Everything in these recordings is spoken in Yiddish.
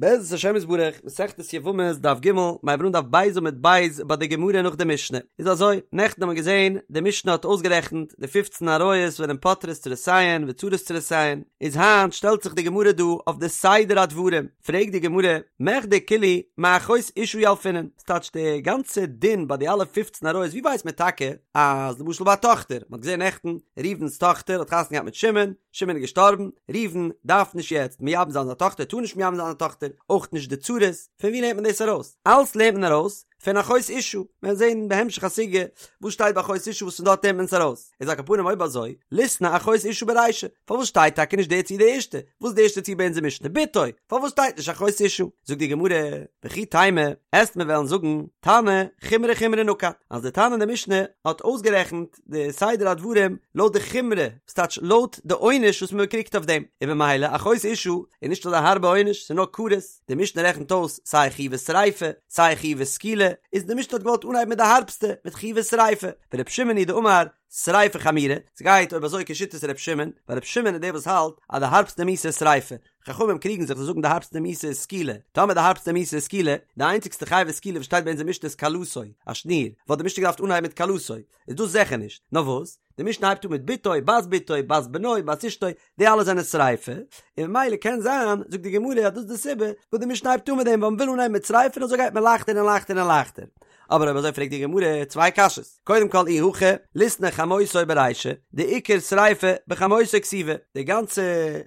בעזרת השם יתברך, מסכת יבמות דף ג', מיר הייבן אן דף ב' עמוד ב' ביי די גמרא נאך די משנה. איז אזוי, נעכטן האבן מיר געזען, די משנה האט אויסגערעכנט די פופצן עריות וואס זענען פוטרות צרותיהן וצרות צרותיהן, איז היינט שטעלט זיך די גמרא דא אויף די סדר הדברים, פרעגט די גמרא, מכדי כולהו מאחות אשה ילפינן, ס'טייטש די גאנצע דין ביי די אלע פופצן עריות, ווי ווייסט מען טאקע אז למשל ביי א טאכטער, מ'האט געזען נעכטן, ראובן'ס טאכטער האט חתונה געהאט מיט שמעון, שמעון איז געשטארבן, ראובן דארף נישט יעצט מייבם זיין זיין טאכטער, טאר נישט מייבם זיין זיין טאכטער, אויך נישט די צרות, פון ווי לערנט מען דאס ארויס? אלס לערנט מען ארויס פון אחות אשה, מיר וועלן זען בהמשך הסוגיא וואס שטייט ביי אחות אשה וואס פון דארט לערנט מען עס ארויס, איז על כל פנים אויב אזוי, ליתני אחות אשה ברישא, פארוואס שטייט טאקע נישט די ציור די ערשטע? וואס איז די ערשטע ציור ביי אונזער משנה? בתו, פארוואס שטייט נישט אחות אשה? זאגט די גמרא, וכי תימא, עסט מיר וועלן זאגן, תנא, חומרי חומרי נקט, אז די תנא אין די משנה האט אויסגערעכנט די סדר הדברים לויט די חומרא, ס'טייטש לויט די עונש וואס מען קריגט אויף דעם, און במילא אחות אשה איז נישט אזא הארבע עונש, ס'איז נאר כרת, די משנה רעכנט אויס סיי חיובי שריפה, סיי חיובי סקילה, איז די משנה האט געוואלט אנהייבן מיט די הארבסטע, מיט חיובי שריפה, ור' שמעון היא דאמר שריפה חמירא, ס'גייט אויב אזוי כשיטת ר' שמעון, ווייל ר' שמעון איז דער וואס האלט אז די הארבסטע מיתה איז שריפה, חכמים קריגן זיך זיי זאגן די הארבסטע מיתה איז סקילה, טאמער די הארבסטע מיתה איז סקילה, די איינציגסטע חיובי סקילה וואס שטייט ביי אונזער משנה איז כלתו, א שניר, וואלט די משנה געדארפט אנהייבן מיט כלתו, איז דאס זיכער נישט, נאר וואס? די משנה הייבט אן מיט בתו, בת בתו, בת בנו, בת אשתו, די אלע זענען שריפה, און ממילא קען זיין, זאגט די גמרא אז דאס איז די סיבה וואס די משנה הייבט אן מיט דעם, ווייל מ'וויל אנהייבן מיט שריפה און אזוי גייט מען לייכטער און לייכטער און לייכטער. אבער אויב אזוי פרעגט די גמרא צוויי קשיות, קודם כל אי הכי, ליתני חמותו ברישא, דעיקר שריפה בחמותו כתיבא, די גאנצע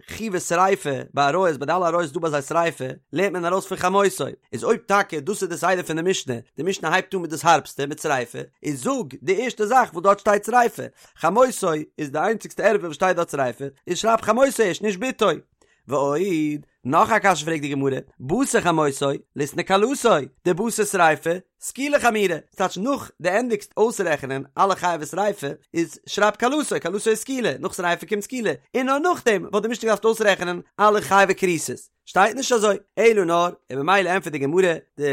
חיובי שריפה ביי עריות, ביי די אלע עריות איז דא ביי זיי שריפה, לערנט מען ארויס פון חמותו, איז אויב טאקע דאס איז די סדר פון די משנה, די משנה הייבט אן מיט דאס הארבסטע, מיט שריפה, איז זאג די ערשטע זאך וואס דארט שטייט שריפה, חמותו איז די איינציגסטע ערווה וואס שטייט דארט שריפה, איז שרייב חמותו ערשט נישט בתו. ועוד, נאך א קשיא פרעגט די גמרא, בתר חמותו, ליתני כלתו, דבתר שריפה, סקילה חמירא, ס'טייטש נאך דו ענדיגסט אויסרעכענען אלע חייבי שריפה, איז שרייב כלתו, כלתו איז סקילה, נאך שריפה קומט סקילה, און נאר נאכדעם וואלט די משנה געדארפט אויסרעכענען אלע חייבי כריתות. שטייט נישט אזוי, אלא נאר, און ממילא ענטפערט די גמרא, די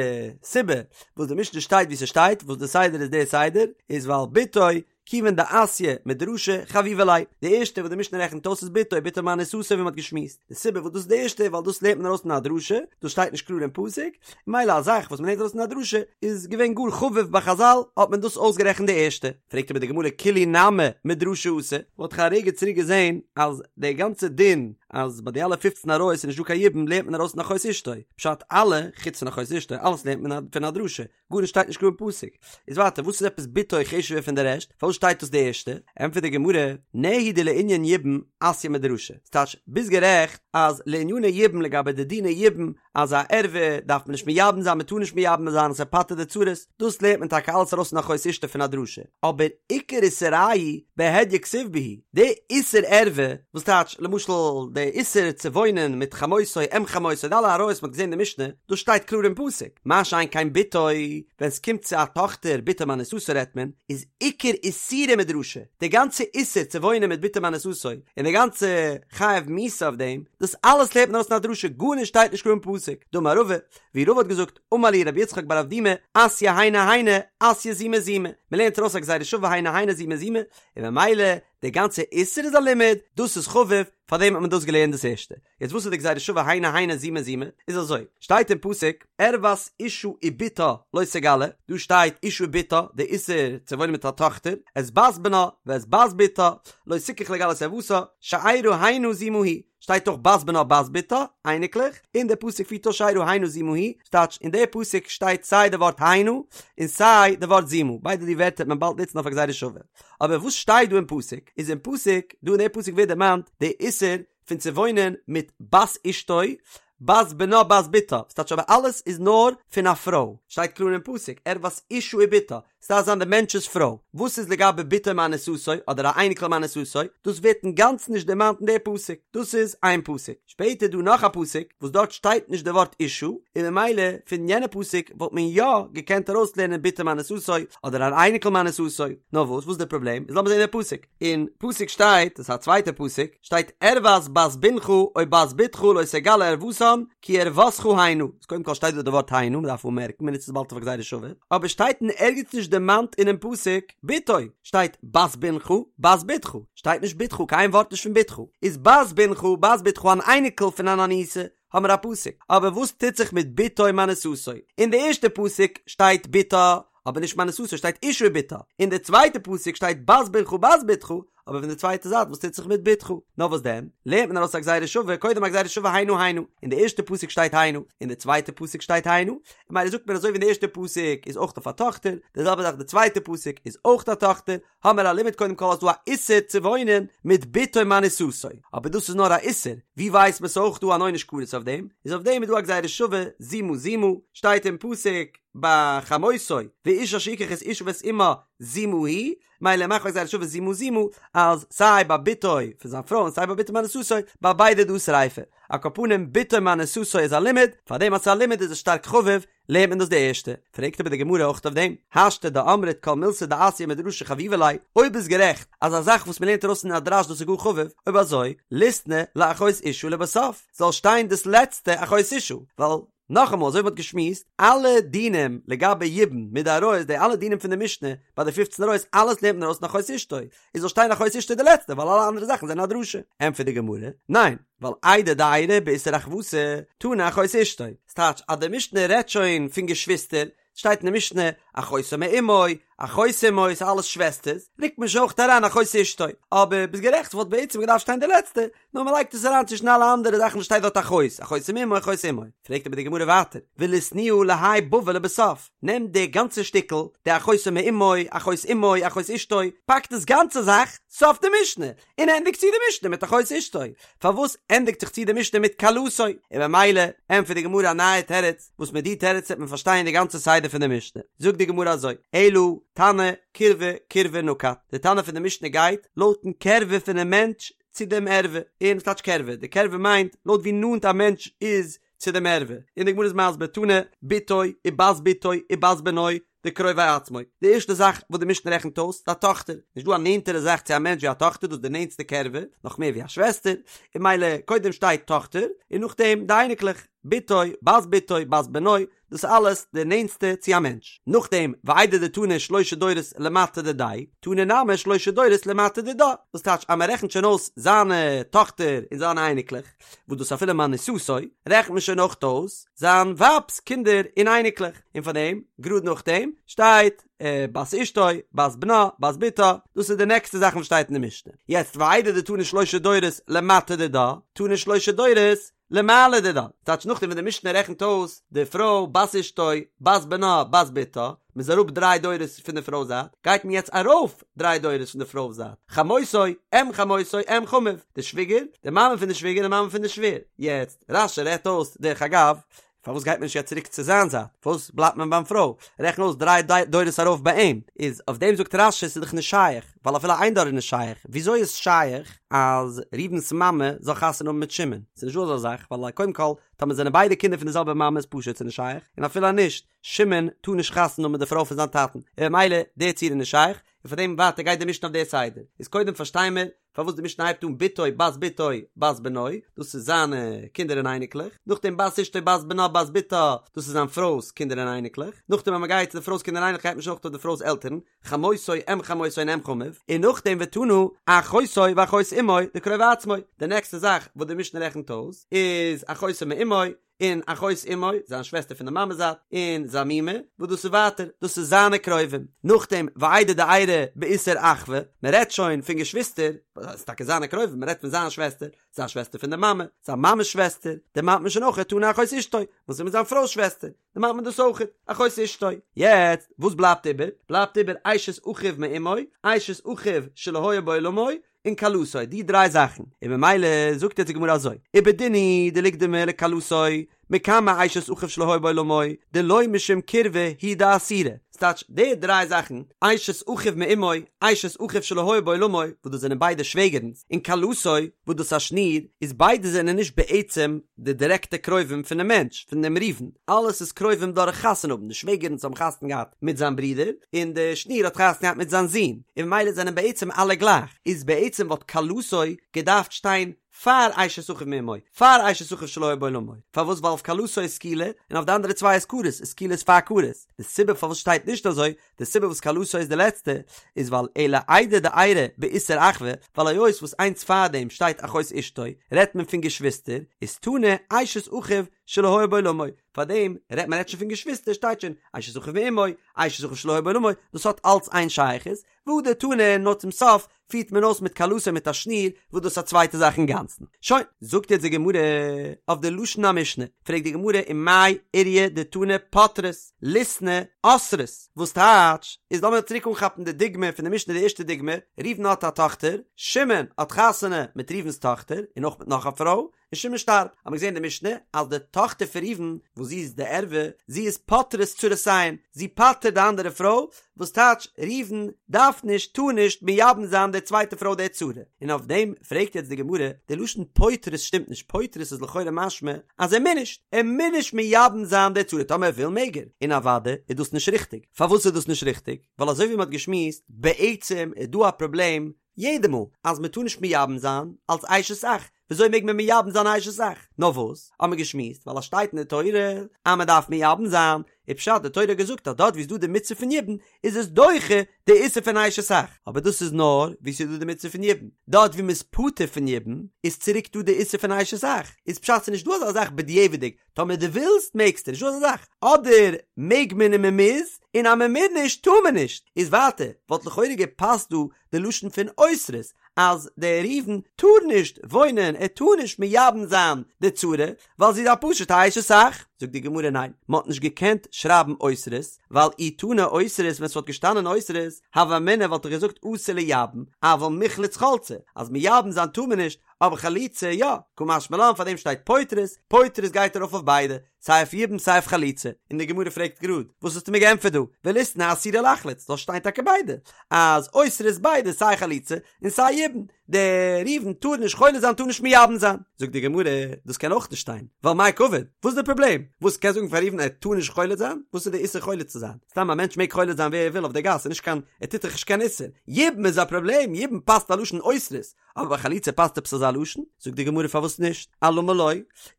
סיבה וואס די משנה שטייט ווי ס'שטייט, וואס די סדר איז די סדר, איז ווייל בתו כיוון דאתיא מדרשא חביבא ליה, די ערשטע וואס די משנה רעכנט אויס איז בתו, בתו מאנוסתו ווי מען האט געשמועסט, די סיבה וואס דאס איז די ערשטע ווייל דאס לערנט מען ארויס פון א דרשה, דאס שטייט נישט קלאר אין פסוק, ממילא א זאך וואס מען לערנט ארויס פון א דרשה איז געווען גאר חביב ביי חזל האט מען דאס אויסגערעכנט די ערשטע. פרעגט אבער די גמרא כולהו נמי מדרשא אתו, מ'האט דאך א רגע צוריק געזען אז די גאנצע דין אז ביי די אלע פופצן עריות איז נישט דא קיין יבום לערנט מען ארויס פון אחות אשתו, פשט אלע חוץ פון אחות אשתו אלעס לערנט מען פון א דרשה, גארנישט שטייט נישט קלאר אין פסוק. איז ווייטער וואס איז עפעס בתו חשוב'ער פון די רעשט? פארוואס שטייט דאס די ערשטע? ענטפערט די גמרא, נהי דלענין יבום אתיא מדרשא. ס'טייטש, ביסט גערעכט אז לעניני יבום לגבי די דיני יבום אז א ערווה דארף מען נישט מייבם זיין מ'טאר נישט מייבם זיין אז ס'פטר'ט די צרות, דאס לערנט מען טאקע אלעס ארויס פון אחות אשתו פון א דרשה. אבער עיקר איסורייהו בהדיא כתיב בהו, די איסור ערווה, וואס טייטש למשל די איסור צו וואוינען מיט חמותו אם חמותו די אלע עריות מ'האט געזען אין די משנה, דאס שטייט קלאר אין פסוק, מה שאין כן בתו, ווען ס'קומט צו א טאכטער בתו מאנוסתו רעדט מען, איז עיקר איסורה מדרשא, די גאנצע איסור צו וואוינען מיט בתו מאנוסתו, און די גאנצע חיוב מיתה אויף דעם, דאס אלעס לערנט מען ארויס פון א דרשה, גארנישט שטייט נישט קלאר אין פסוק, דאמר רבא, ווי רבא האט געזאגט, אמר לי רבי יצחק בר אבדימי, אתיא היינו היינו, אתיא זימה זימה, מ'לערנט ארויס א גזירה שווה היינו היינו זימה זימה, און ממילא די גאנצע איסור איז א לימוד, דאס איז חביב, פארדעם האט מען דאס געלערנט דאס ערשטע. יעצט וואס איז די גזירה שווה היינו היינו זימה זימה? איז אזוי, שטייט אין פסוק, ערות אשה ובתה לא תגלה, דא שטייט אשה ובתה, די איסור צו וואוינען מיט א טאכטער, את בת בנה ואת בת בתה, לא תקח לגלות ערותה, שארה הנה זימה היא, שטייט אויך בת בנה בת בתה, אייניקלעך, און דער פסוק פירט אויס שארה הנה זימה היא, ס'טייטש אין די פסוק שטייט סיי די ווארט הנה און סיי די ווארט זימה, ביידע די ווערטער וועט מען באלד נוצן אויף א גזירה שווה. אבער וואס שטייט דא אין פסוק? איז אין פסוק, דא אין די פסוק ווערט דערמאנט די איסור פון צו וואוינען מיט בת אשתו, בת בנה בת בתה, ס'טייטש אבער אלעס איז נאר פון א פרוי, שטייט קלאר אין פסוק, ערות אשה ובתה, ס'דארף זיין די מענטש'ס פרוי, וואס איז לגבי בתו מאנוסתו אדער א אייניקל מאנוסתו, דאס ווערט אינגאנצן נישט דערמאנט אין די פסוק, דאס איז איין פסוק, שפעטער איז דא נאך א פסוק וואס דארט שטייט נישט די ווארט אשה, און ממילא פון יענע פסוק וואלט מען יא געקענט ארויסלערנען בתו מאנוסתו אדער אן אייניקל מאנוסתו, נאר וואס, וואס איז די פראבלעם, איז לאמיר זען די פסוק, אין פסוק שטייט, דאס איז א צווייטע פסוק, שטייט ערות בת בנך או בת בתך לא תגלה ערותן כי ערותך הנה, איז קודם כל שטייט דא די ווארט הנה, מען דארף אנמערקן, מען נוצט עס באלד אויף א גזירה שווה, אבער שטייט אין ערגעץ נישט דערמאנט אינעם פסוק בתו, שטייט בת בנך, בת בתך, שטייט נישט בתך, קיין ווארט נישט פון בתך, איז בת בנך, בת בתך אן אייניקל פון אן אנוסה. האמיר א פסוק, אבער וואס טוט זיך מיט בתו מאנוסתו? אין די ערשטע פסוק שטייט בתה, אבער נישט מאנוסתו, שטייט אשה ובתה, אין די צווייטע פסוק שטייט בת בנך בת בתך, אבער פון די צווייטע זייט וואס טוט זיך מיט בתך? נאר וואס דען? לערנט מען ארויס א גזירה שווה, קודם א גזירה שווה הנה הנה, אין די ערשטע פסוק שטייט הנה, אין די צווייטע פסוק שטייט הנה, ממילא זאגט מען אזוי ווי אין די ערשטע פסוק איז אויך אויף א טאכטער, די זעלבע זאך די צווייטע פסוק איז אויך א טאכטער, האמער א לימוד קודם כל אז דא א איסור צו וואוינען מיט בתו מאנוסתו, אבער דאס איז נאר א איסור, ווי ווייסט מען ס'אויך דא אן עונש כרת אויף דעם, איז אויף דעם איז דא א גזירה שווה זימה זימה, שטייט אין פסוק ביי חמותו, ואיש אשר יקח את אשה ואת אמה זימה היא, מילא מאכט מען א גזירה שווה זימה זימה אז סיי ביי בתו פון זיין פרוי און סיי ביי בתו מאנוסתו ביי ביידע דא שריפה, על כל פנים בתו מאנוסתו איז א לימוד, פארדעם אז ס'איז א לימוד איז עס שטארק חביב, לערנט מען דאס די ערשטע, פרעגט אבער די גמרא אויך אויף דעם, השתא דאמרת כל מילתא דאתיא מדרשא חביבא ליה, אויב איז גערעכט אז א זאך וואס מ'לערנט ארויס אין א דרש דאס איז גאר חביב, אויב אזוי, ליתני לאחות אשה לבסוף, זאל שטיין דאס לעצטע אחות אשה, ווייל נאכאמאל אזוי ווי מ'האט געשמועסט, אלע דינים לגבי יבום מיט די עריות, די אלע דינים פון די משנה ביי די פופצן עריות, אלעס לערנט מען ארויס אין אחות אשתו, איז זאל שטיין אחות אשתו די לעצטע ווייל אלע אנדערע זאכן זענען א דרשה. ענטפערט די גמרא, ניין, ווייל איידי דאיירי באיסור אחוותא, תנא אחות אשתו, ס'טייטש אז די משנה רעדט שוין פון געשוויסטער, שטייט אין די משנה, אחותו מאמו, אחות אמו, ס'איז אלעס שוועסטערס, רוקט מען שוין אויך אריין אחות אשתו, אבער ביסט גערעכט ס'וואלט בעצם געדארפט שטיין די לעצטע, נאר מ'לייגט עס אריין צווישן אלע אנדערע זאכן וואס שטייט דארט אחות, אחותו מאמו אחות אמו. פרעגט אבער די גמרא ווייטער, וליתנייה להאי בבא לבסוף, נעם די גאנצע שטיקל, די אחותו מאמו, אחות אמו, אחות אשתו, פאק דאס גאנצע זאך סוף די משנה, און ענדיג צו די משנה מיט אחות אשתו. פארוואס ענדיגט זיך צו די משנה מיט כלתו? און במילא ענטפערט די גמרא א נייע תירוץ, וואס מיט די תירוץ וועט מען פארשטיין די גאנצע סדר פון די משנה. זאגט די גמרא אזוי, אלא תנא קירבה קירבה נקט, די תנא פון די משנה גייט לויטן קרבה פונעם מענטש צו דעם ערווה, און וואס טייטש קרבה? די קרבה מיינט לויט ווי נאנט א מענטש איז צו דעם ערווה, און די גמרא איז מסביר תנא בתו ובת בתו ובת בנו דקרובי עצמו, די ערשטע זאך וואס די משנה רעכנט אויס איז א טאכטער, נישט דא א נענטערע זאך צו א מענטש ווי א טאכטער, דאס איז די נענטסטע קרבה, נאך מער ווי א שוועסטער, און מילא קודם שטייט טאכטער, און נאכדעם די אייניקלעך, בתו, בת בתו, בת בנו, דאס איז אלעס די נענטסטע צו א מענטש. נאכדעם, ואיידי דתנא שלשה דורות למטה דידיה, תנא נמי שלשה דורות למטה דידה, דאס טייטש אז מען רעכנט שוין אויס זיינע טאכטער און זיינע אייניקלעך, וואס דאס אפילו מאנוסתו, רעכנט מען שוין אויך אויס זיין ווייב'ס קינדער און אייניקלעך, און פאר דעם, גראד נאכדעם, שטייט, בת אשתו, בת בנה, בת בתה, דאס איז די נעקסטע זאכן וואס שטייט אין די משנה. יעצט ואיידי דתנא שלשה דורות למטה דידה, תנא שלשה דורות למעלה דידה, טייטש נאכדעם ווען די משנה רעכנט אויס די פרוי בת אשתו, בת בנה, בת בתה, מ'איז אראפ דריי דורות פון די פרוי זייט, גייט מען יעצט ארויף דריי דורות פון די פרוי זייט, חמותו, אם חמותו, אם חמיו, די שוויגער, די מאמע פון די שוויגער, די מאמע פון די שווער. יעצט, רש"י רעדט אויס, דרך אגב, פארוואס גייט מען נישט יעצט צוריק צו זיין זייט? פארוואס בלייבט מען ביים פרוי? רעכן אויס דריי דורות ארויף ביי אים. איז אויף דעם זאגט רש"י ס'איז דאך נישט שייך, ווייל אפילו איין דור איז נישט שייך. וויאזוי איז שייך אז ראובן'ס מאמע זאל חתונה האבן מיט שמעון? ס'איז נישט דא אזא זאך, ווייל קודם כל, טאמער זענען ביידע קינדער פון די זעלבע מאמע איז פשוט ס'איז נישט שייך, און אפילו אז נישט, שמעון טאר נישט חתונה האבן מיט די פרוי פון זיין טאטן, און ממילא די ציור איז נישט שייך, און פאר דעם ווייטער גייט די משנה אויף די סדר. איז קודם פארשטיי מיר פארוואס די משנה הייבט אן בתו בת בתו בת בנו, דאס איז זיינע קינדער און אייניקלעך, נאכדעם בת אשתו בת בנה בת בתה, דאס איז זיין פרוי'ס קינדער און אייניקלעך, נאכדעם אז מען גייט צו די פרוי'ס קינדער און אייניקלעך גייט מען שוין אויך אויף די פרוי'ס עלטערן, חמותו אם חמותו און אם חמיו, און נאכדעם ותנא אחותו ואחות אמו דקרובי עצמו, די נעקסטע זאך וואס די משנה רעכנט אויס איז אחותו מאמו, און אחות אמו, זיין שוועסטער פון די מאמע זייט, און זיין מומע, וואס דאס איז ווייטער, דאס איז זיינע קרובים. נאכדעם, ואיידי דאיירי באיסור אחווה, מען רעדט שוין פון געשוויסטער, דאס איז טאקע זיינע קרובים, מען רעדט פון זיין שוועסטער, זיין שוועסטער פון די מאמע, זיין מאמע'ס שוועסטער, דערמאנט מען שוין אויך תנא אחות אשתו, וואס איז מיט זיין פרוי'ס שוועסטער, דערמאנט מען דאס אויך, אחות אשתו. יעצט, וואס בלייבט איבער? בלייבט איבער אשת אחיו מאמו, אשת אחיו שלא היה בעולמו, און כלתו, די דריי זאכן, און ממילא זאגט יעצט די גמרא אזוי, ובדין הוא דליקדמה לכלתו, מקמי אשת אחיו שלא היה בעולמו, דלא משום קירבה הוא דאסירא, ס'טייטש די דריי זאכן, אשת אחיו מאמו, אשת אחיו שלא היה בעולמו, וואס דאס זענען ביידע שוועגערנס, און כלתו, וואס דאס א שניר, איז ביידע זענען נישט בעצם די דירעקטע קרובים פונעם מענטש, פון דעם ראובן, אלעס איז קרובים דורך חתונה האבן, די שוועגערנס האבן חתונה געהאט מיט זיין ברודער, און די שניר האט חתונה געהאט מיט זיין זון, און ממילא זענען בעצם אלע גלייך, איז בעצם וואלט כלתו געדארפט שטיין פאר אשת אחיו מאמו, פאר אשת אחיו שלא היה בעולמו, פארוואס ווייל אויף כלתו איז סקילה, און אויף די אנדערע צוויי איז כרת, איז סקילה איז פאר כרת, די סיבה פארוואס שטייט נישט. נישט אזוי, די סיבה וואס כלתו איז די לעצטע איז ווייל אלא איידי דאיירי באיסור אחווה, ווייל היות וואס איינס פארדעם שטייט אחות אשתו רעדט מען פון געשוויסטער, איז תנא אשת אחיו שלא היה בעולמו, פארדעם רעדט מען רעדט שוין פון געשוויסטער שטייט שוין אשת אחיו מאמו, אשת אחיו שלא היה בעולמו, דאס האט אלץ איין שייכות, והדר תנא נאר צום סוף פירט מען אויס מיט כלתו מיט א שניר וואס דאס איז א צווייטע זאך אינגאנצן. שוין, זאגט יעצט די גמרא אויף די לשון המשנה, פרעגט די גמרא ומאי איריא דתנא פוטרות, ליתני אוסרות, וואס טייטש, איז לאמיר צוריק אנכאפן די דוגמא פון די משנה די ערשטע דוגמא, ראובן האט א טאכטער, שמעון האט חתונה מיט ראובן'ס טאכטער און אויך מיט נאך א פרוי, און שמעון שטארבט, האט מען געזען אין די משנה אז די טאכטער פון ראובן וואס זי איז די ערווה, זי איז פוטרת צרותיהן, זי פטר'ט די אנדערע פרוי, וואס טייטש ראובן דארף נישט, טאר נישט, מייבם זיין די צווייטע פרוי די צרה, און אויף דעם פרעגט יעצט די גמרא, די לשון פוטרת שטימט נישט, פוטרת איז לכאורה משמע אז ער מוז נישט, ער מוז נישט מייבם זיין די צרה, טאמער ער וויל מעג ער, און אוודאי איז דאס נישט ריכטיג, פארוואס איז דאס נישט ריכטיג? ווייל אזוי ווי מען האט געשמועסט, בעצם איז דא א פראבלעם יעדע מאל אז מען טאר נישט מייבם זיין אלס אשת אח, וויאזוי מעג מען מייבם זיין א אשת אח? נאר וואס, האט מען געשמועסט, ווייל עס שטייט אין די תורה אז מען דארף מייבם זיין, איז פשט די תורה האט געזאגט אז דארט ווי איז דא די מצוה פון יבום איז עס דוחה די איסור פון אשת אח, אבער דאס איז נאר ווי ס'איז דא די מצוה פון יבום, דארט ווי מען איז פטור פון יבום איז צוריק דא די איסור פון אשת אח, איז פשט ס'איז נישט דא אזא זאך בדיעבד'יג, טאמער דו ווילסט מעגסטו, נישט דא אזא זאך, אדער מעג מען און מען מוז, און אז מען מוז נישט טאר מען נישט, איז ווייטער וואלט לכאורה געפאסט דא די לשון פון אוסרות אז דער ראובן טאר נישט וואוינען ער טאר נישט מייבם זיין די צרה ווייל זי איז א פשוטע אשת אח, זאגט די גמרא ניין מען האט נישט געקענט שרייבן אוסרות ווייל אי תנא אוסרות ווען ס'וואלט געשטאנען אוסרות הוה אמינא וואלט איך געזאגט אסור לייבם אבל מיחלץ חלצי אז מייבם זיין טאר מען נישט אבער חליצה יא, קא משמע לן פאר דעם שטייט פוטרות, פוטרות גייט ארויף אויף ביידע, סיי אויף יבום סיי אויף חליצה, און די גמרא פרעגט גראד, וואס האסטו מיר געענטפערט דא, וליתני אסירה לחלוץ, זאל שטיין טאקע ביידע, אז אוסרות ביידע סיי חליצה און סיי יבום, דער ראובן טאר נישט חולץ זיין טאר נישט מייבם זיין, זאגט די גמרא, דאס קען אויך נישט שטיין, ווייל מאי קעביד, וואס איז די פראבלעם, וואס קענסט זאגן פאר ראובן ער טאר נישט חולץ זיין, וואס איז די איסור חולץ צו זיין, סתם א מענטש מעג חולץ זיין ווער ער וויל אויף די גאס, ס'איז נישט קיין, ער טוט דאך נישט קיין איסור, יבום איז א פראבלעם, יבום פאסט א לשון אוסרות, אבער ביי חליצה פאסט עפעס אזא לשון? זאגט די גמרא פארוואס נישט? אלמה לא,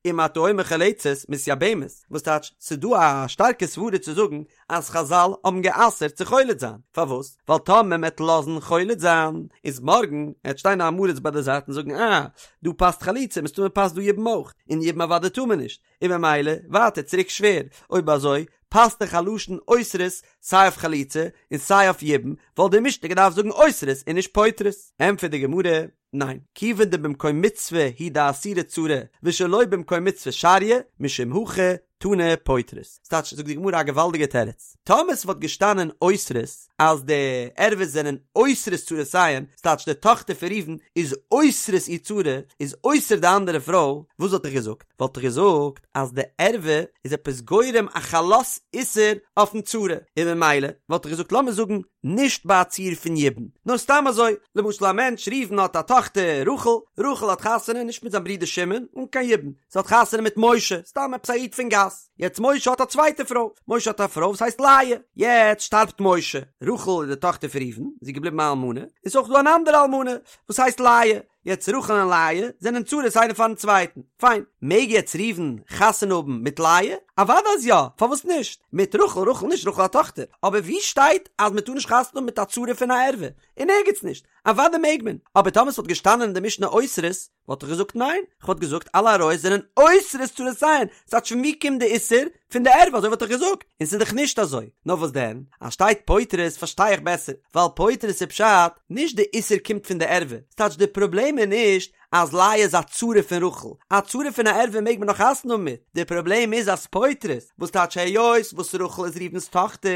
אם אתה אומר חולצת מתייבמת, וואס טייטש ס'איז דא א שטארקע סברה צו זאגן אז חזל האבן גע'אסר'ט צו חולץ זיין, פארוואס? ווייל טאמער מ'עט לאזן חולץ זיין, איז מארגן עט שטיין א עם הארץ ביי די זייט און זאגן אה, דא פאסט חליצה, מסתמא פאסט דא יבום אויך, און יבום אוודאי טאר מען נישט, און ממילא ווייטער צוריק שווער, אויב אזוי פאסט דאך א לשון אוסרות סיי אויף חליצה און סיי אויף יבום, וואלט די משנה געדארפט זאגן אוסרות און נישט פוטרות. ענטפערט די גמרא, ניין, כיוון דבמקום מצוה הוא דאסירא צרה ושלא במקום מצוה שריא, משום הכי תנא פוטרות. ס'טייטש, זאגט די גמרא א געוואלדיגע תירוץ, טאמער ס'וואלט געשטאנען אוסרות אז די ערוות זענען אוסרות צרותיהן, ס'טייטש די טאכטער פון ראובן איז אוסרת איר צרה, איז אוסר די אנדערע פרוי, וואס וואלט איך געזאגט? וואלט איך געזאגט אז די ערווה איז עפעס גורם א חלות איסור אויפן צרה, און ממילא וואלט איך געזאגט לאמיר זאגן נישט ביי א ציור פון יבום, נאר סתם אזוי, למשל א מענטש ראובן האט א טאכטער רחל, רחל האט חתונה נישט מיט זיין ברודער שמעון, אן קיין יבום, זי האט חתונה מיט משה, סתם עפעס א איד פון גאס, יעצט משה האט א צווייטע פרוי, משה האט א פרוי וואס הייסט לאה, יעצט שטארבט משה, רחל איז די טאכטער פון ראובן, זי איז געבליבן א אלמנה, און ס'איז אויך דא אן אנדערע אלמנה וואס הייסט לאה, יעצט רחל און לאה זענען צרות איינער פארן צווייטן, פיין, מעג יעצט ראובן חתונה האבן מיט לאה? אוודאי אז יא, פארוואס נישט? מיט רחל, רחל נישט, רחל א טאכטער, אבער ווי שטייט אז מען טאר נישט חתונה האבן מיט א צרה פון א ערווה? אין ערגעץ נישט, אוודאי מעג מען, אבער טאמער ס'וואלט געשטאנען אין די משנה אוסרות, וואלט איך געזאגט ניין, כ'וואלט געזאגט אלע עריות זענען אוסרות צרותיהן, ס'טייטש פון ווי קומט די איסור? פון די ערווה, אזוי וואלט איך געזאגט, און ס'איז דאך נישט אזוי, נאר וואס דען, אז שטייט פוטרות פארשטיי איך בעסער, ווייל פוטרות איז פשט, נישט די איסור קומט פון די ערווה, ס'טייטש די פראבלעם איז נישט אז לאה איז א צרה פון רחל, א צרה פון א ערווה מעג מען נאך חתונה האבן מיט, די פראבלעם איז אז פוטרות, וואס טייטש היות וואס רחל איז ראובן'ס טאכטער,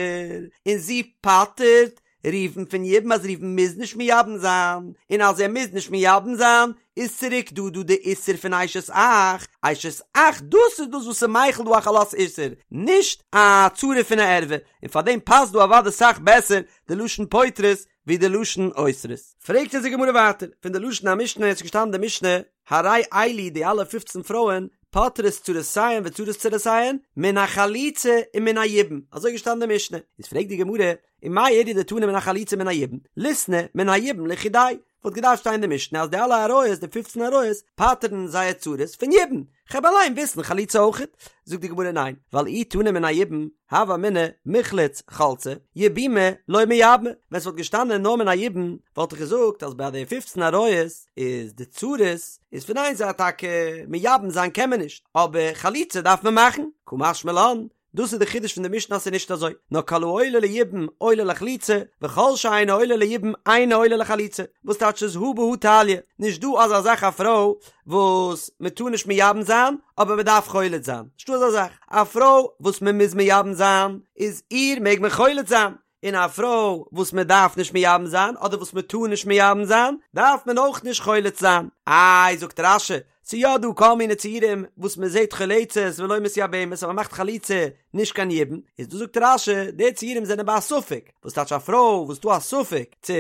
און זי פטר'ט ראובן פון יבום אז ראובן מוז נישט מייבם זיין, און אז ער מוז נישט מייבם זיין איז צוריק דא דא די איסור פון אשת אח, אשת אח דאס איז דאס וואס איז מחיל דא א חלות איסור, נישט א צרה פון א ערווה, און פאר דעם פאסט דא אוודאי סאך בעסער די לשון פוטרות ווי די לשון אוסרות. פרעגט אונז די גמרא ווייטער, פון די לשון המשנה איז געשטאנען די משנה, הרי אלו די אלע פופצן פרויען פוטרות צרותיהן וצרות צרותיהן מן החליצה ומן היבום, אזוי איז געשטאנען די משנה, איז פרעגט די גמרא, ומאי איריא דתנא מן החליצה ומן היבום, ליתני מן היבום לחודיה, וואלט געדארפט שטיין אין די משנה אז די אלע עריות, די פופצן עריות, פטר'ן זייער צרות פון יבום, כ'העב אליין וויסן חליצה אויכעט? זאגט די גמרא ניין, ווייל אי תנא מן היבום, הוה אמינא מיחלץ חלצי, יבומי לא מייבמי, ווען ס'וואלט געשטאנען נאר מן היבום, וואלט איך געזאגט אז ביי די פופצן עריות איז די צרות איז פון איין זייט טאקע מייבם זיין קען מען נישט, אבער חליצה דארף מען מאכן, קא משמע לן, דאס איז די חידוש פון די משנה אז ס'איז נישט אזוי, נאר כל העולה ליבום עולה לחליצה, וכל שאינו עולה ליבום אינו עולה לחליצה, וואס טייטש איז הא בהא תליא, נישט דא אזא זאך א פרוי וואס מען טאר נישט מייבם זיין אבער מען דארף חולץ זיין, נישטא אזא זאך, א פרוי וואס מען מוז מייבם זיין איז איר מעג מען חולץ זיין, און א פרוי וואס מען דארף נישט מייבם זיין אדער וואס מען טאר נישט מייבם זיין דארף מען אויך נישט חולץ זיין. איי זאגט רש"י, ס'איז יא דא כל מיני ציורים וואס מען זעט חולצת ולא מתייבמת אז מען מאכט חליצה נישט קיין יבום, איז דא זאגט רש"י די ציורים זענען ביי א ספק, וואס טייטש א פרוי וואס דא א ספק צו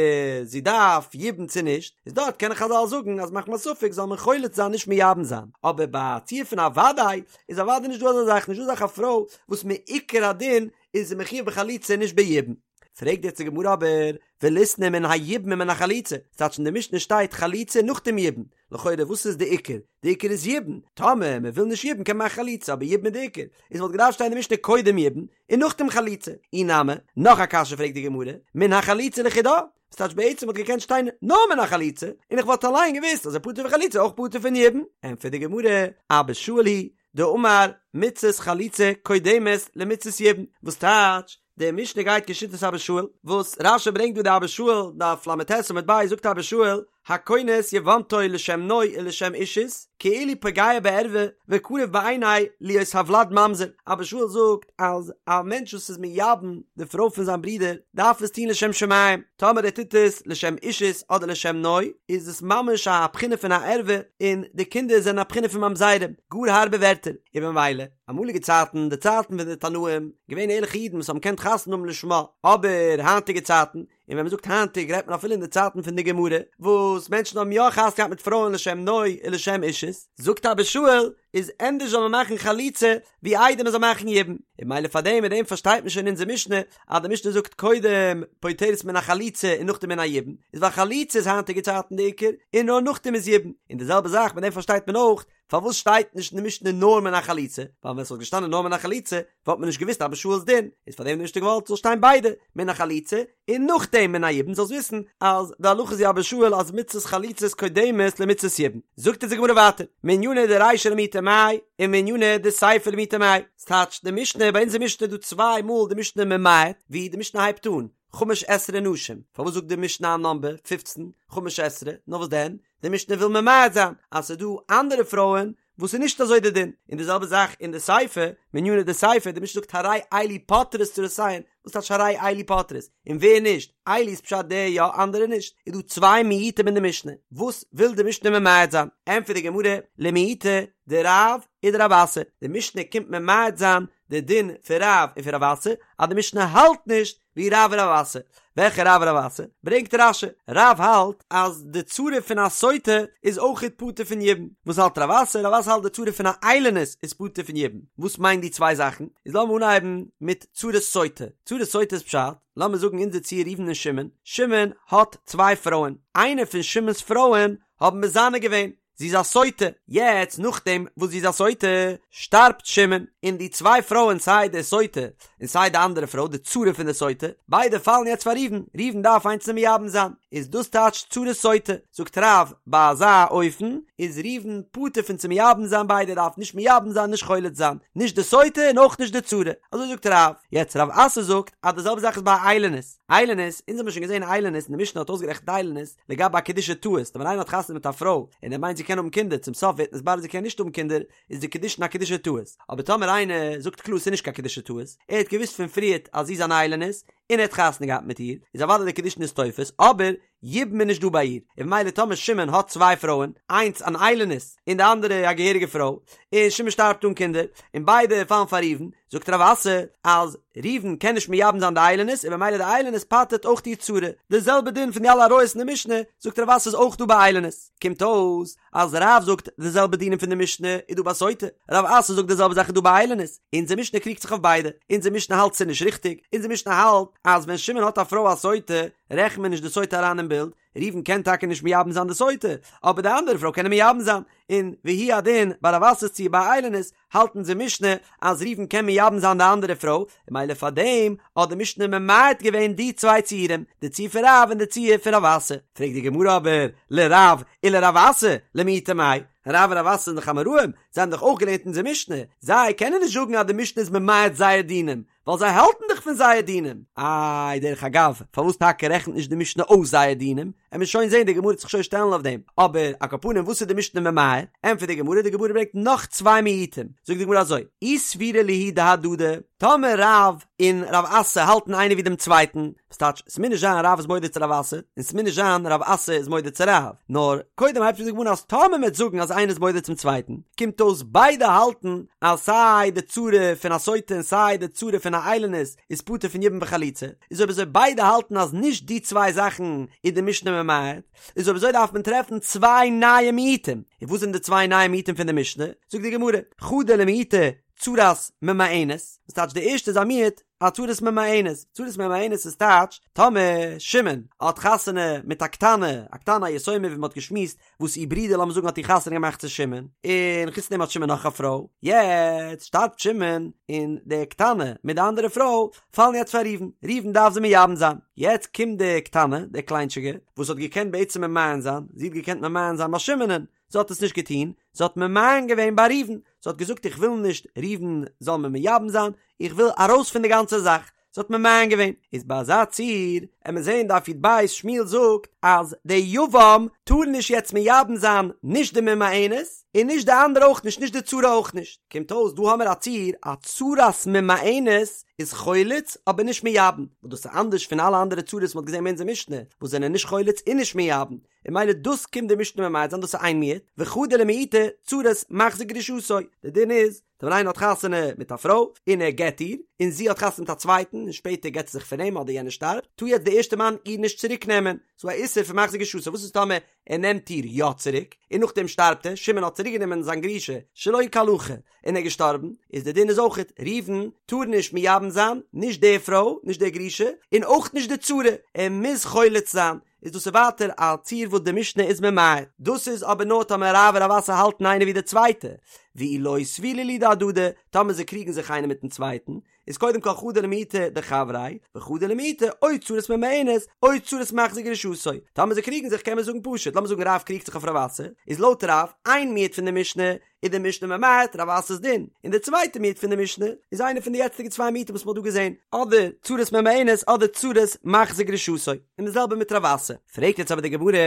זי דארף יבום צו נישט, איז דארט קענען חז"ל זאגן אז מחמת ספק זאל מען חולץ זיין נישט מייבם זיין, אבער ביי א ציור פון א וודאי איז אוודאי נישט דא אזא זאך, נישט דא אזא זאך א פרוי וואס מעיקר הדין איז זי מחויב בחליצה נישט ביבום. פרעגט יעצט די גמרא אבער, וליתני מן היבום ומן החליצה, ס'טייטש אין די משנה שטייט חליצה נאך דעם יבום, לכאורה וואס איז די עיקר? די עיקר איז יבום, טאמער מען וויל נישט יבום קען מען מאכן חליצה אבער יבום איז די עיקר, איז וואלט געדארפט שטיין אין די משנה קודם יבום און נאכדעם חליצה, אי נמי, נאך א קשיא פרעגט די גמרא, מן החליצה לחודה, ס'טייטש בעצם וואלט געקענט שטיין נאר מן החליצה, און איך וואלט אליין געוואוסט אז ער פטור פון חליצה אויך פטור פון יבום, ענטפערט די גמרא, אבא שאול היא דאמר מצות חליצה קודמת למצות יבום, וואס טייטש, די משנה גייט כשיטת אבא שאול, וואס רש"י ברענגט דא די אבא שאול, דף ל"ט עמוד ב', זאגט אבא שאול, הכונס יבמתו לשם נוי ולשם אישות, כאילו פוגע בערווה וקרוב בעיני להיות הוולד ממזר, אבא שאול זאגט אז א מענטש וואס איז מייבם די פרוי פון זיין ברודער דארף עס טון לשם שמים, טאמער ער טוט עס לשם אישות אדער לשם נוי, איז עס ממש א בחינה פון א ערווה, און די קינדער זענען א בחינה פון ממזרים, גאר הארבע ווערטער, און במילא, אמאליגע צייטן, די צייטן פון די תנאים, געווען ערליכע אידן וואס האבן געקענט חתונה האבן לשמה, אבער היינטיגע צייטן, און ווען מען זאגט היינטיג רעדט מען אפילו אין די צייטן פון די גמרא, וואס מענטשן האבן יא חתונה געהאט מיט פרויען לשם נוי און לשם אישות, זאגט אבא שאול, איז ענדערש זאל מען מאכן חליצה, ווי איידער מען זאל מאכן יבום, און ממילא פאר דעם מיט דעם פארשטייט מען שוין אונזער משנה, אז די משנה זאגט קודם פוטרת מן החליצה און נאכדעם מן היבום, איז ווייל חליצה איז היינטיגע צייטן די עיקר, און נאר נאכדעם איז יבום, און די זעלבע זאך מיט דעם פארשטייט מען אויך פארוואס שטייט נישט אין די משנה נאר מן החליצה, ווייל ווען ס'וואלט געשטאנען נאר מן החליצה וואלט מען נישט געוואוסט אבא שאול'ס דין, איז פאר דעם האט די משנה געוואלט ס'זאל שטיין ביידע, מן החליצה און נאכדעם מן היבום זאלסט וויסן אז די הלכה איז ווי אבא שאול אז מצות חליצה איז קודמת למצות יבום. זאגט אונז די גמרא ווייטער, מנינא דרישא למעוטי מאי ומנינא דסיפא למעוטי מאי, ס'טייטש די משנה, ביי אונזער משנה איז דא צוויי מאל די משנה ממעט ווי די משנה הייבט אן, חמש עשרה נשים, פארוואס זאגט די משנה א נאמבער פופצן, חמש עשרה, נאר וואס דען, די משנה וויל ממעט זיין אז ס'איז דא אנדערע פרויען וואס איז נישט אזוי די דין, און די זעלבע זאך אין די סיפא, מנינא דסיפא, די משנה זאגט הרי אלו פוטרות צרותיהן, וואס טייטש הרי אלו פוטרות? און ווער נישט? אלו איז פשט די יא אנדערע נישט, איז דא צוויי מיעוטים אין די משנה, וואס וויל די משנה ממעט זיין? ענטפערט די גמרא, למעוטי דרב ודרב אסי, די משנה קומט ממעט זיין די דין פון רב און פון רב אסי, אז די משנה האלט נישט ווי רב און רב אסי. וועלכע רב און רב אסי? ברענגט רש"י, רב האלט אז די צרה פון א סוטה איז אויכעט פטור פון יבום. וואס האלט רב אסי? רב אסי האלט די צרה פון א איילונית איז פטור פון יבום. וואס מיינט די צוויי זאכן? איז לאמיר אנהייבן מיט צרת סוטה. צרת סוטה איז פשט, לאמיר זאגן אונזער ציור ראובן און שמעון, שמעון האט צוויי פרויען, איינע פון שמעון'ס פרויען האבן מזנה געווען, זי איז א סוטה, יעצט נאכדעם וואס זי איז א סוטה, שטארבט שמעון, און די צוויי פרויען סיי די סוטה און סיי די אנדערע פרוי די צרה פון די סוטה, ביידע פאלן יעצט פאר ראובן, ראובן דארף איינס מייבם זיין, איז דאס טייטש צרת סוטה, זאגט רב, ביי אזא אופן איז ראובן פטור פון צו מייבם זיין ביידע, דארף נישט מייבם זיין נישט חולץ זיין, נישט די סוטה און אויך נישט די צרה, אזוי זאגט רב, יעצט רב אסי זאגט אז די זעלבע זאך איזביי א איילונית. איילונית, אונז האבן שוין געזען איילונית און די משנה האט אויסגערעכנט איילונית לגבי א קידושי טעות, ווען איינער האט חתונה מיט א פרוי און ער מיינט זי קען האבן קינדער צום סוף ווערט נתברר זי קען נישט האבן קינדער איז די קידושין א קידושי טעות, אבער טאמער איינער זאגט קלאר ס'איז נישט קיין קידושי טעות, ער האט געוואוסט פון פריערט אז זי איז אן איילונית און ער האט חתונה געהאט מיט איר, איז אוודאי די קידושין איז תופס, אבער. יבום איז נישט דא ביי איר, און ממילא טאמער שמעון האט צוויי פרויען, איינס אן איילונית און די אנדערע א געהעריגע פרוי, און שמעון שטארבט אן קינדער, און ביידע פאלן פאר ראובן, זאגט רב אסי אז ראובן קען נישט מייבם זיין די איילונית און ממילא די איילונית פטר'ט אויך איר צרה, די זעלבע דין פון די אלע עריות אין די משנה, זאגט רב אסי איז אויך דא ביי איילונית, קומט אויס אז רב זאגט די זעלבע דינים פון די משנה איז דא ביי סוטה, רב אסי זאגט די זעלבע זאך איז דא ביי איילונית, אונזער משנה קריגט זיך אויף ביידע, אונזער משנה האלט ס'איז נישט ריכטיג, אונזער משנה האלט אז ווען שמעון האט א פרוי א סוטה רעכנט מען נישט די סוטה אריין אין בילד, ראובן קען טאקע נישט מייבם זיין די סוטה, אבער די אנדערע פרוי קען ער מייבם זיין, און והוא הדין ביי רב אסי'ס ציור ביי איילונית האלט אונזער משנה אז ראובן קען מייבם זיין די אנדערע פרוי, און ממילא פאר דעם האט די משנה ממעט געווען די צוויי ציורים, די ציור פון רב און די ציור פון רב אסי. פרעגט די גמרא אבער, לרב ולרב אסי, למעוטי מאי? רב און רב אסי זענען דאך אמוראים, זיי האבן דאך אויך געלערנט אונזער משנה, זיי קענען נישט זאגן אז די משנה איז ממעט זייער דינים, ווייל זיי האלטן דאך פון זייער דינים. איי, דרך אגב, פארוואס טאקע רעכנט נישט די משנה אויס זייער דינים? עמיר שוין זען, די גמרא וועט זיך שוין שטעלן אויף דעם. אבער, על כל פנים, וואס איז די משנה ממעט? ענטפערט די גמרא, די גמרא ברענגט נאך צוויי מיעוטים. זאגט די גמרא אזוי, אי סבירא להו דהדדי, טאמער רב און רב אסי האלטן איינער ווי דעם צווייטן, וואס טייטש, ס'מוז נישט זיין רב איז מודה צו רב אסי, און ס'מוז נישט זיין רב אסי איז מודה צו רב, נאר קודם הייבט אן די גמרא אז טאמער מ'וועט זאגן אז איינער איז מודה צום צווייטן, קומט אויס ביידע האלטן אז סיי די צרה פון א סוטה און סיי די צרה פון א איילונית איז פטור פון יבום וחליצה, איז אויב אזוי ביידע האלטן אז נישט די צוויי זאכן איז די משנה ממעט, איז אויב אזוי דארף מען טרעפן צוויי נייע מיעוטים, און וואס זענען די צוויי נייע מיעוטים פון די משנה? זאגט די גמרא, חדא למעוטי צרת ממאנת, וואס טייטש די ערשטע איז א מיעוט א צרת ממאנת, צרת ממאנת איז טייטש טאמער שמעון האט חתונה מיט א קטנה, א קטנה א יתומה ווי מען האט געשמועסט וואס איר ברודער לאמיר זאגן האט איר חתונה געמאכט צו שמעון, און חוץ דעם האט שמעון נאך א פרוי, יעצט שטארבט שמעון און די קטנה מיט די אנדערע פרוי פאלן יעצט פאר ראובן, ראובן דארף זיי מייבם זיין, יעצט קומט די קטנה, די קליינטשיגע, וואס האט געקענט בעצם ממאן זיין, זי האט געקענט ממאן זיין ביי שמעונ'ען, זי האט עס נישט געטון, זי האט ממאן געווען ביי ראובן, זי האט געזאגט איך וויל נישט ראובן זאל מיר מייבם זיין, איך וויל ארויס פון די גאנצע זאך, זי האט ממאן געווען, איז ביי אזא ציור, עמיר זעהן דף י"ב, שמואל זאגט אז די יבם טאר נישט יעצט מייבם זיין נישט די ממאנת, און נישט די אנדערע אויך נישט, נישט די צרה אויך נישט, קומט אויס דא האמיר א ציור, א צרת ממאנת איז חולץ אבער נישט מייבם, וואס דאס איז אנדערש פון אלע אנדערע צרות וואס מ'האט געזעהן אין אונזער משנה, וואס זענען נישט חולץ און נישט מייבם, און ממילא דאס קומט די משנה ממעט זיין דאס איז איין מיעוט, וחדא למעוטי צרת מחזיר גרושתו, די דין איז, ווען איינער האט חתונה מיט א פרוי, און ער גט איר, און זי האט חתונה מיט א צווייטן, און שפעטער גט זי זיך פון אים אדער יענער שטארבט, טאר יעצט די ערשטע מאן איר נישט צוריק נעמען, ס'איז א איסור פון מחזיר גרושתו, וואס איז טאמער ער נעמט איר יא צוריק, און נאכדעם שטארבט ער, שמעון האט צוריק גענומען זיין גרושה שלא כהלכה, און ער איז געשטארבן, איז די דין איז אויכעט, ראובן טאר נישט מייבם זיין, נישט די פרוי, נישט די גרושה, און אויך נישט די צרה, ער מוז חולץ זיין, איז דאס איז ווייטער א ציור וואס די משנה איז ממעט, דאס איז אבער נאר טאמער רב און רב אסי האלטן איינער ווי די צווייטע, ואי לא סבירא להו דהדדי, טאמער זיי קריגן זיך איינער מיטן צווייטן, איז קודם כל חדא למעוטי דחבריה, וחדא למעוטי או צרת ממאנת, או צרת מחזיר גרושתו, טאמער זיי קריגן זיך קען מען זאגן פשוט, לאמיר זאגן רב קריגט זיך אויף רב אסי, איז לויט רב, איין מיעוט פון די משנה, איז די משנה ממעט רב אסי'ס דין, און די צווייטע מיעוט פון די משנה איז איינע פון די יעצטיגע צוויי מיעוטים וואס מ'האט דא געזען, אדער צרת ממאנת אדער צרת מחזיר גרושתו, און די זעלבע מיט רב אסי. פרעגט יעצט אבער די גמרא,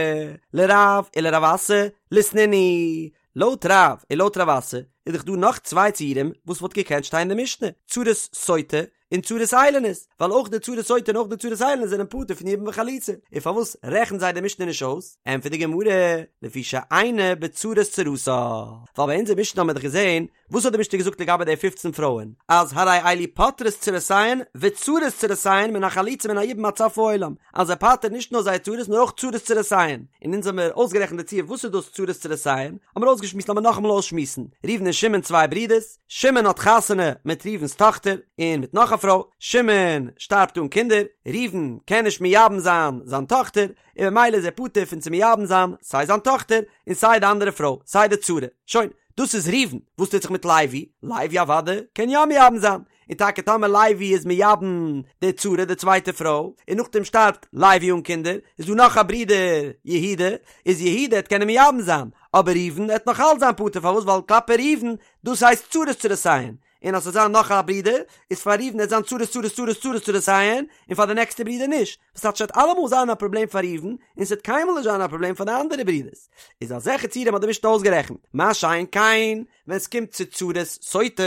לרב ולרב אסי ליתנינהו, לויט רב און לויט רב אסי איז דאך דא נאך צוויי ציורים וואס וואלט געקענט שטיין אין די משנה, צרת סוטה און צרת איילונית, ווייל אויך די צרת סוטה און אויך די צרת איילונית זענען פטור פון יבום וחליצה, און פארוואס רעכנט זיי די משנה נישט אויס? ענטפערט די גמרא, לפי שאינה בצרת צרתה, ווייל ביי אונזער משנה האבן מיר דאך געזען, וואס האט די משנה געזאגט לגבי די פופצן פרויען, אז הרי אלו פוטרות צרותיהן וצרות צרותיהן מן החליצה ומן היבום עד סוף העולם, אז זיי פטר'ן נישט נאר זייער צרות נאר אויך צרות צרותיהן, און אונז האמיר אויסגערעכנט די ציור וואס איז דאס צרות צרותיהן, האמיר אויסגעשמועסט לאמיר נאכאמאל אויסשמועסן, ראובן און שמעון צוויי ברידערס, שמעון האט חתונה מיט ראובן'ס טאכטער און מיט נאך א פרוי, שמעון שטארבט אן קינדער, ראובן קען נישט מייבם זיין זיין טאכטער, און ממילא איז ער פטור פון צו מייבם זיין סיי זיין טאכטער און סיי די אנדערע פרוי, סיי די צרה. שוין, דאס איז ראובן. וואס טוט זיך מיט לוי? לוי אוודאי קען יא מייבם זיין, און טאקע טאמער לוי איז מייבם די צרה די צווייטע פרוי, און נאכדעם שטארבט לוי אן קינדער, איז דא נאך א ברודער יהודה, איז יהודה העט קענען מייבם זיין, אבער ראובן העט נאך אלץ זיין פטור, פארוואס ווייל כלפי ראובן דאס הייסט צרות צרותיהן, און אז ס'זאל זיין נאך א ברודער, איז פאר ראובן העט זיין צרות צרות צרות צרות צרותיהן, און פאר די נעקסטע ברודער נישט, וואס טייטש ס'וועט אלעמאל זיין א פראבלעם פאר ראובן, און ס'וועט קיינמאל נישט זיין א פראבלעם פאר די אנדערע ברודערס, איז אזעלכע ציורים האט די משנה אויסגערעכנט, מה שאין כן ווען ס'קומט צו צרת סוטה,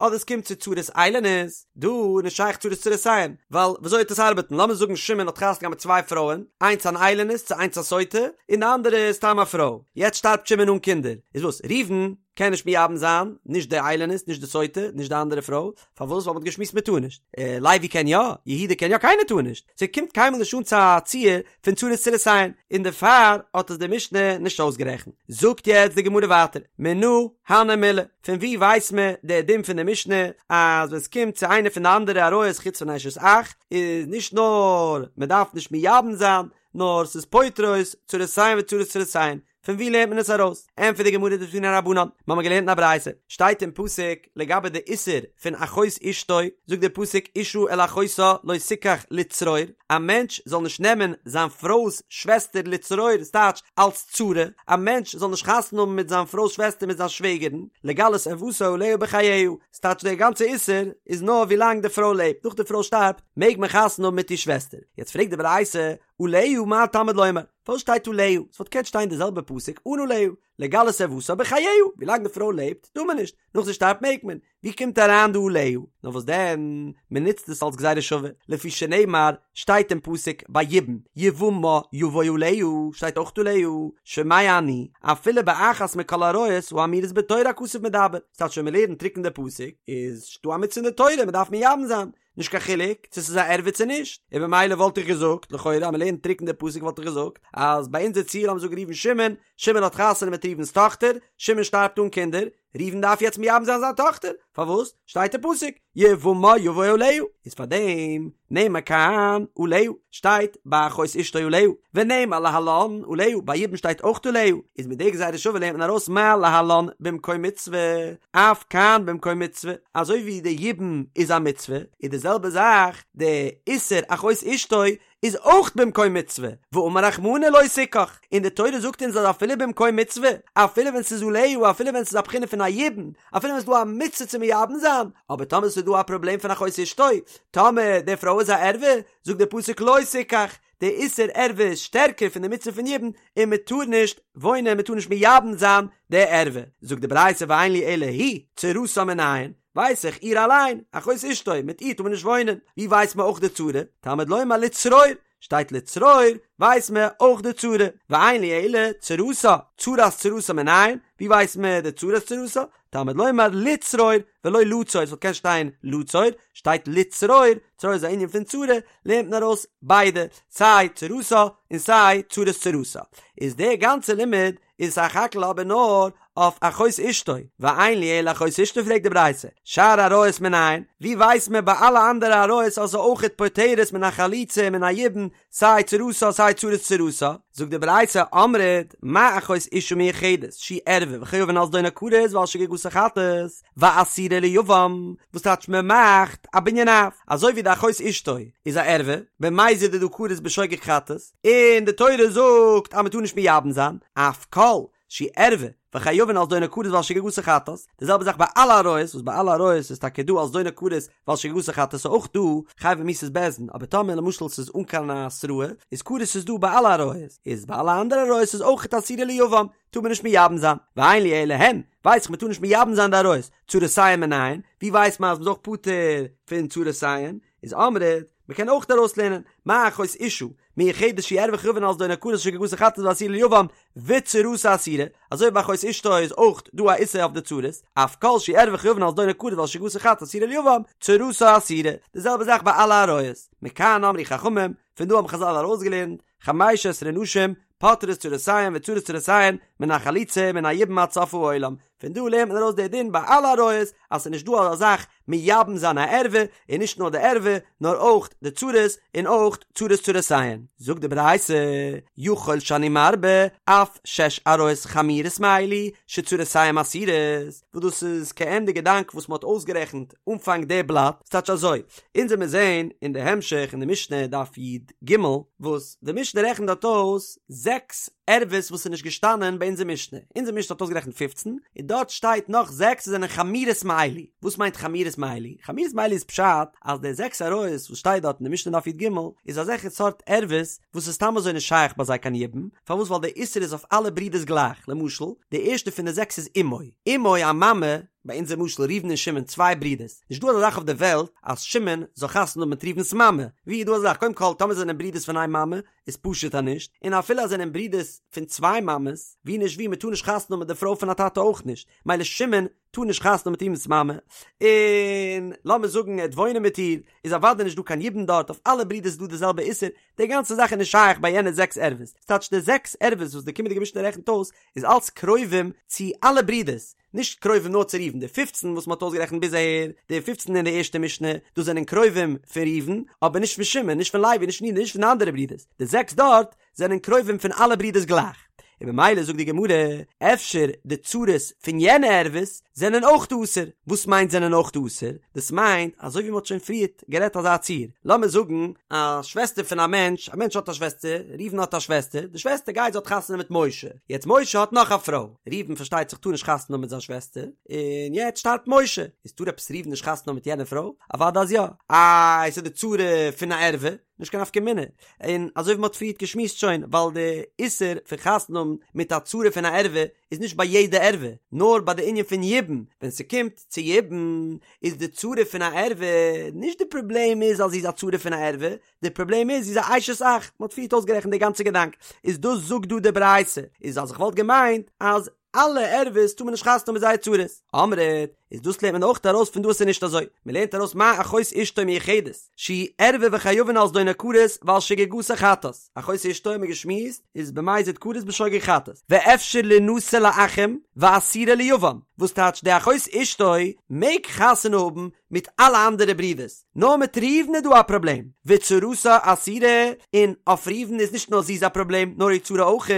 אדער עס קומט צו צרת איילונית, דא איז נישט שייך צרת צרותיהן, ווייל וויאזוי וועט עס ארבעטן, לאמיר זאגן שמעון האט חתונה געהאט מיט צוויי פרויען, איינס אן איילונית צו איינס א סוטה, און די אנדערע איז סתם א פרוי, יעצט שטארבט שמעון אן קינדער, איז וואס, ראובן קען נישט מייבם זיין, נישט די איילונית, נישט די סוטה, נישט די אנדערע פרוי, פארוואס? ווייל מ'האט געשמועסט מ'טאר נישט. לוי קען יא, יהודה קען יא, קיינער טאר נישט. ס'קומט קיינמאל נישט אן צו א ציור פון צרות צרותיהן, און דערפאר האט עס די משנה נישט אויסגערעכנט. זאגט יעצט די גמרא ווייטער, מנא הני מילי, פון וואו ווייסט מען די דין פון די משנה אז ווען ס'קומט צו איינע פון די אנדערע עריות חוץ פון אשת אח, איז נישט נאר מ'דארף נישט מייבם זיין, נאר ס'איז פוטרות צרותיהן וצרות צרותיהן, פון וואו לערנט מען עס ארויס? ענטפערט די גמרא דתנו רבנן, מיר האבן געלערנט אין א ברייתא, שטייט אין פסוק לגבי די איסור פון אחות אשתו, זאגט דער פסוק אשה אל אחותה לא תקח לצרור, א מענטש זאל נישט נעמען זיין פרוי'ס שוועסטער לצרור, ס'טייטש אלס צרה, א מענטש זאל נישט חתונה האבן מיט זיין פרוי'ס שוועסטער מיט זיין שוועגערין, לגלות ערוותה עליה בחייה, ס'טייטש דער גאנצע איסור איז נאר ווי לאנג די פרוי לעבט, נאך די פרוי שטארבט מעג מען חתונה האבן מיט איר שוועסטער, יעצט פרעגט די ברייתא, עליה מה תלמוד לומר? פארוואס שטייט עליה? ס'וואלט געקענט שטיין די זעלבע פסוק אן עליה, לגלות ערוותה בחייה, ווילאנג די פרוי לעבט טאר מען נישט, נאך זי שטארבט מעג מען, ווי קומט אריין דא עליה? נאר וואס דען, מען נוצט עס אלס גזירה שווה, לפי שנאמר, שטייט אין פסוק ביי יבום, יבמה יבוא עליה, שטייט אויך עליה, שומע אני, אפילו באחת מכל העריות האמורות בתורה הכתוב מדבר, ס'טייטש ווען מען לערנט טרוקן די פסוק, איז דא א מצוה אין די תורה, מען דארף מייבם זיין, נישט קיין חילוק צו ס'איז א ערווה צו נישט, און במילא וואלט איך געזאגט, לכאורה אז מ'לערנט טרוקן די פסוק וואלט איך געזאגט, אז ביי אונזער ציור לאמיר זאגן ראובן שמעון, שמעון האט חתונה מיט ראובן'ס טאכטער, שמעון שטארבט אן קינדער, ראובן דארף יעצט מייבם זיין זיין טאכטער, פארוואס? שטייט אין פסוק, יבמה יבוא עליה, איז פארדעם נאמר כאן עליה, שטייט ביי אחות אשתו עליה, ונאמר להלן עליה, ביי יבום שטייט אויך עליה, איז מיט די גזירה שווה לערנט מען ארויס מה להלן במקום מצוה, אף כאן במקום מצוה, אזוי ווי די יבום איז א מצוה, איז די זעלבע זאך די איסור אחות אשתו איז אויך במקום מצוה, ואמר רחמנא לא תקח, און די תורה זאגט אונז אז אפילו במקום מצוה, אפילו ווען ס'איז עליה, אפילו ווען ס'איז א בחינה פון א יבום, אפילו ווען ס'איז דא א מצוה צו מייבם זיין, אבער טאמער ס'איז דא א פראבלעם פון אחות אשתו, טאמער די פרוי איז א ערווה, זאגט די פסוק לא תקח, די איסור ערווה איז שטערקער פון די מצוה פון יבום, און מען טאר נישט וואוינען, מען טאר נישט מייבם זיין די ערווה. זאגט די ברייתא ואין לי אלא היא, צרתה מנין, ווייס איך, איר אליין, אחות אשתו, מיט איר טאר מען נישט וואוינען, ווי ווייסט מען אויך די צרה? תלמוד לומר לצרור, שטייט לצרור, ווייסט מען אויך די צרה, ואין לי אלא צרתה, צרת צרתה מנין, ווי ווייסט מען די צרת צרתה? תלמוד לומר לצרור ולא לצור, עס וואלט געקענט שטיין לצור, שטייט לצרור, צרור איז א ענין פון צרה, לערנט מען ארויס ביידע, סיי צרתה און סיי צרת צרתה. איז דער גאנצער לימוד איז סך הכל אבער נאר אויף אחות אשתו, ואין לי אלא אחות אשתו פרעגט די ברייתא, שאר עריות מנין, ווי ווייסט מען ביי אלע אנדערע עריות אז ס'איז אויכעט פוטרת מן החליצה ומן היבום, סיי צרתה סיי צרת צרתה, זאגט די ברייתא אמרת מה אחות אשה מיוחדת שהיא ערווה וחייבין על זדונה כרת ועל שגגתה חטאת ואסורה ליבם, וואס טייטש מען מאכט א בנין אב, אזוי ווי די אחות אשתו איז א ערווה, במזיד איז דא כרת בשוגג חטאת, און די תורה זאגט אז מען טאר נישט מייבם זיין, אף כל שהיא ערווה וחייבין על זדונה כרת ועל שגגתה חטאת, די זעלבע זאך ביי אלע עריות, וואס ביי אלע עריות איז טאקע דא על זדונה כרת ועל שגגתה חטאת איז אויך דא חייבי מיתות בית דין, אבער טאמער למשל ס'איז אן קיין התראה, איז כרת איז דא ביי אלע עריות, איז ביי אלע אנדערע עריות איז אויך אסורה ליבם, טאר מען נישט מייבם זיין, ואין לי אלא הן, ווייס איך מען טאר נישט מייבם זיין די עריות, צרותיהן מנין, ווי ווייסט מען אז מ'איז אויך פטור פון צרותיהן, איז אמרת, מ'קען אויך ארויסלערנען, מה אחות אשה, מיוחדת שהיא ערווה וחייבין על זדונה כרת שגגתה חטאת ואסורה ליבם, וצרתה אסורה, אזוי ווי ביי אחות אשתו איז אויך דא א איסור אויף די צרות, אף כל שהיא ערווה וחייבין על זדונה כרת ועל שגגתה חטאת אסורה ליבם, צרתה אסורה, די זעלבע זאך ביי אלע עריות. מכאן אמרו חכמים, פון דא האבן חזל ארויסגעלערנט, חמש עשרה נשים, פוטרות צרותיהן וצרות צרותיהן, מן החליצה ומן היבום עד סוף העולם, פון דא לערנט מען ארויס די דין ביי אלע עריות אז ס'איז נישט דא אזא זאך מייבם זיין א ערווה, און נישט נאר די ערווה נאר אויך די צרות און אויך צרות צרותיהן. זאגט די ברייתא, יכול שאני מרבה אף שש עריות חמורות מאלו שצרותיהן אסורות, וואס דאס איז כעין די געדאנק וואס מ'האט אויסגערעכנט אנפאנג די בלאט, ס'טייטש אזוי, אונז וועמיר זעהן אין די המשך אין די משנה דף י"ג, וואס די משנה רעכנט דארט אויס זעקס ערוות וואס איז נישט געשטאנען ביי אונזער משנה, אונזער משנה האט אויסגערעכנט פופצן, און דארט שטייט נאך זעקס וואס זענען חמורות מאלו, וואס מיינט חמורות מאלו? חמורות מאלו איז פשט אז די זעקס עריות וואס שטייט דארט אין די משנה דף י"ג איז אזעלכע סארט ערוות וואס איז סתם אזוי נישט שייך ביי זיי קיין יבום, פארוואס ווייל די איסור איז אויף אלע ברידערס גלייך, למשל די ערשטע פון די זעקס איז אמו, אמו א מאמע. ביי אונזער משל ראובן און שמעון צוויי ברידערס, נישט דא אזא זאך אויף די וועלט אז שמעון זאל חתונה האבן מיט ראובן'ס מאמע, ווי איז דא אזא זאך? קודם כל טאמער זענען ברידערס פון איין מאמע איז פשוט אז נישט, און אפילו אז זענען ברידערס פון צוויי מאמעס, ווי נישט ווי מ'טאר נישט חתונה האבן מיט די פרוי פון א טאטע אויך נישט, מילא שמעון טאר נישט חתונה האבן מיט ראובן'ס מאמע, און לאמיר זאגן ער וועט וואוינען מיט איר, איז אוודאי נישט דא קיין יבום דארט, אויף אלע ברידערס איז דא די זעלבע איסור, די גאנצע זאך איז נישט שייך ביי יענע זעקס ערוות, ס'טייטש די זעקס ערוות וואס די קומענדיגע משנה רעכנט אויס איז אלץ קרובים צו אלע ברידערס, נישט קרובים נאר צו ראובן, די פופצן וואס מ'האט אויסגערעכנט ביז אהער, די פופצן אין די ערשטע משנה, דאס זענען קרובים פון ראובן, אבער נישט פון שמעון, נישט פון לוי, נישט פון יהודה, נישט פון די אנדערע ברידערס, די זעקס דארט זענען קרובים פון אלע ברידערס גלייך, און במילא זאגט די גמרא, אפשר די צרות פון יענע ערוות זענען אויך אסור, וואס מיינט זענען אויך אסור? דאס מיינט אזוי ווי מ'האט שוין פריערט גערעדט אזא ציור, לאמיר זאגן א שוועסטער פון א מענטש, א מענטש האט א שוועסטער, ראובן האט א שוועסטער, די שוועסטער גייט זי האט חתונה מיט משה, יעצט משה האט נאך א פרוי, ראובן פארשטייט זיך טאר נישט חתונה האבן מיט זיין שוועסטער, און יעצט שטארבט משה, איז טאר עפעס ראובן נישט חתונה האבן מיט יענע פרוי? אוודאי אז יא, איי ס'איז די צרה פון א ערווה, נישט קיין נפקא מינה, און אזוי ווי מ'האט פריערט געשמועסט שוין, ווייל די איסור פון חתונה האבן מיט א צרה פון א ערווה איז נישט ביי יעדע ערווה, נאר ביי די ענין פון יבום, ווען ס'קומט צו יבום איז די צרה פון א ערווה, נישט די פראבלעם איז אז זי איז א צרה פון א ערווה, די פראבלעם איז זי איז א אשת אח, מ'האט פריערט אויסגערעכנט די גאנצע געדאנק, איז דאס זאגט דא די ברייתא, איז אז איך וואלט געמיינט אז אלע ערוות טאר מען נישט חתונה האבן מיט זייער צרות, אמרת, איז דאס לערנט מען אויך ארויס פון דא אז ס'איז נישט אזוי, מ'לערנט ארויס מה אחות אשתו מיוחדת, שהיא ערווה וחייבין על זדונה כרת ועל שגגתה חטאת, אחות אשתו האט מען געשמועסט איז במזיד כרת בשוגג חטאת, ואפשר לינשא לאחים ואסורה ליבם, וואס טייטש די אחות אשתו מעג חתונה האבן מיט אלע אנדערע ברידערס, נאר מיט ראובן איז דא א פראבלעם, וצרתה אסורה, און אויף ראובן איז נישט נאר זי איז א פראבלעם, נאר איר צרה אויך,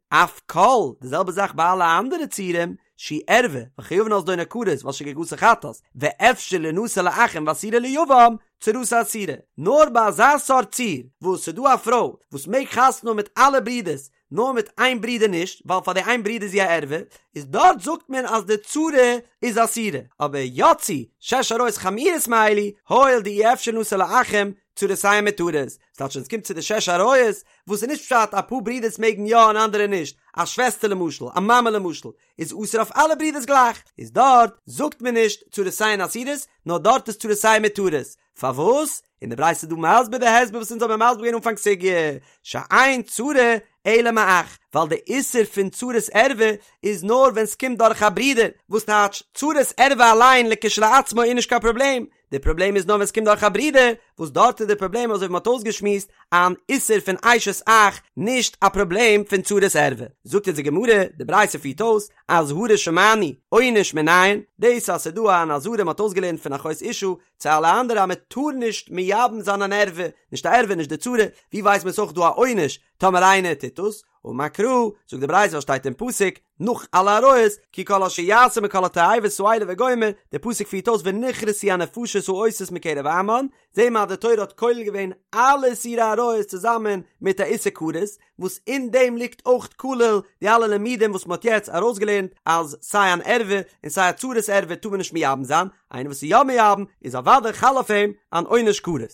אף כל, די זעלבע זאך ביי אלע אנדערע ציורים, שהיא ערווה, וחייבין על זדונה כרת ועל שגגתה חטאת, ואפשר לינשא לאחים ואסורה ליבם, צרתה אסורה, נאר ביי אזא סארט ציור, וואס ס'איז דא א פרוי וואס מעג חתונה האבן מיט אלע ברידערס, נאר מיט איין ברודער נישט, ווייל פאר די איין ברודער איז זי א ערווה, איז דארט זאגט מען אז די צרה איז אסורה, אבער יצאו שש עריות חמורות מאלו, הואיל דאי אפשר לינשא לאחים, צרותיהן מותרות, ס'טייטש ווען ס'קומט צו די שש עריות, וואס איז נישט פשט אפאר ברודערס מעגן יא און אנדערע נישט, א שוועסטער למשל, א מאמע למשל, איז אסור אויף אלע ברודערס גלייך, איז דארט זאגט מען נישט צרותיהן אסורות, נאר דארט איז צרותיהן מותרות, פארוואס? און די ברייתא איז דא מסביר די הסבר וואס אונז האבן מסביר געווען אנפאנג סוגיא, שאין צרה אלא מאח, ווייל די איסור פון צרת ערווה איז נאר ווען ס'קומט דורך א ברודער, וואס טייטש צרת ערווה אליין לכשלעצמו איז נישט קיין פראבלעם, די פראבלעם איז נאר ווען ס'קומט דורך א ברודער, וואס דארט איז די פראבלעם אזוי ווי מ'האט אויסגעשמועסט, אן איסור פון אשת אח, נישט א פראבלעם פון צרת ערווה. זאגט אונז די גמרא, די ברייתא פירט אויס, אזהרה שמענו, עונש מנין, דאס אז ס'איז דא אן אזהרה מ'האט אויסגעלערנט פון אחות אשה, צו אלע אנדערע אז מען טאר נישט מייבם זיין אן ערווה, נישט א ערווה נישט די צרה, ווי ווייסט מען ס'איז אויך דא א עונש טאמער איינער טוט דאס, אמר קרא, זאגט די ברייתא וואס שטייט אין פסוק, נאך אלע עריות, כי כל אשר יעשה מכל התועבות האלה וגומר, די פסוק פירט אויס ונכרתו הנפשות העושות מקרב עמם, זעהן מיר אז די תורה האט כולל געווען אלע איסורי עריות צוזאמען מיט א איסור כרת, וואס אין דעם ליגט אויך כולל די אלע לימודים וואס מען האט יעצט ארויסגעלערנט אז סיי אן ערווה און סיי א צרת ערווה טאר מען נישט מייבם זיין, איינער וואס איז יא מייבם איז אוודאי חל אויף אים אן עונש כרת.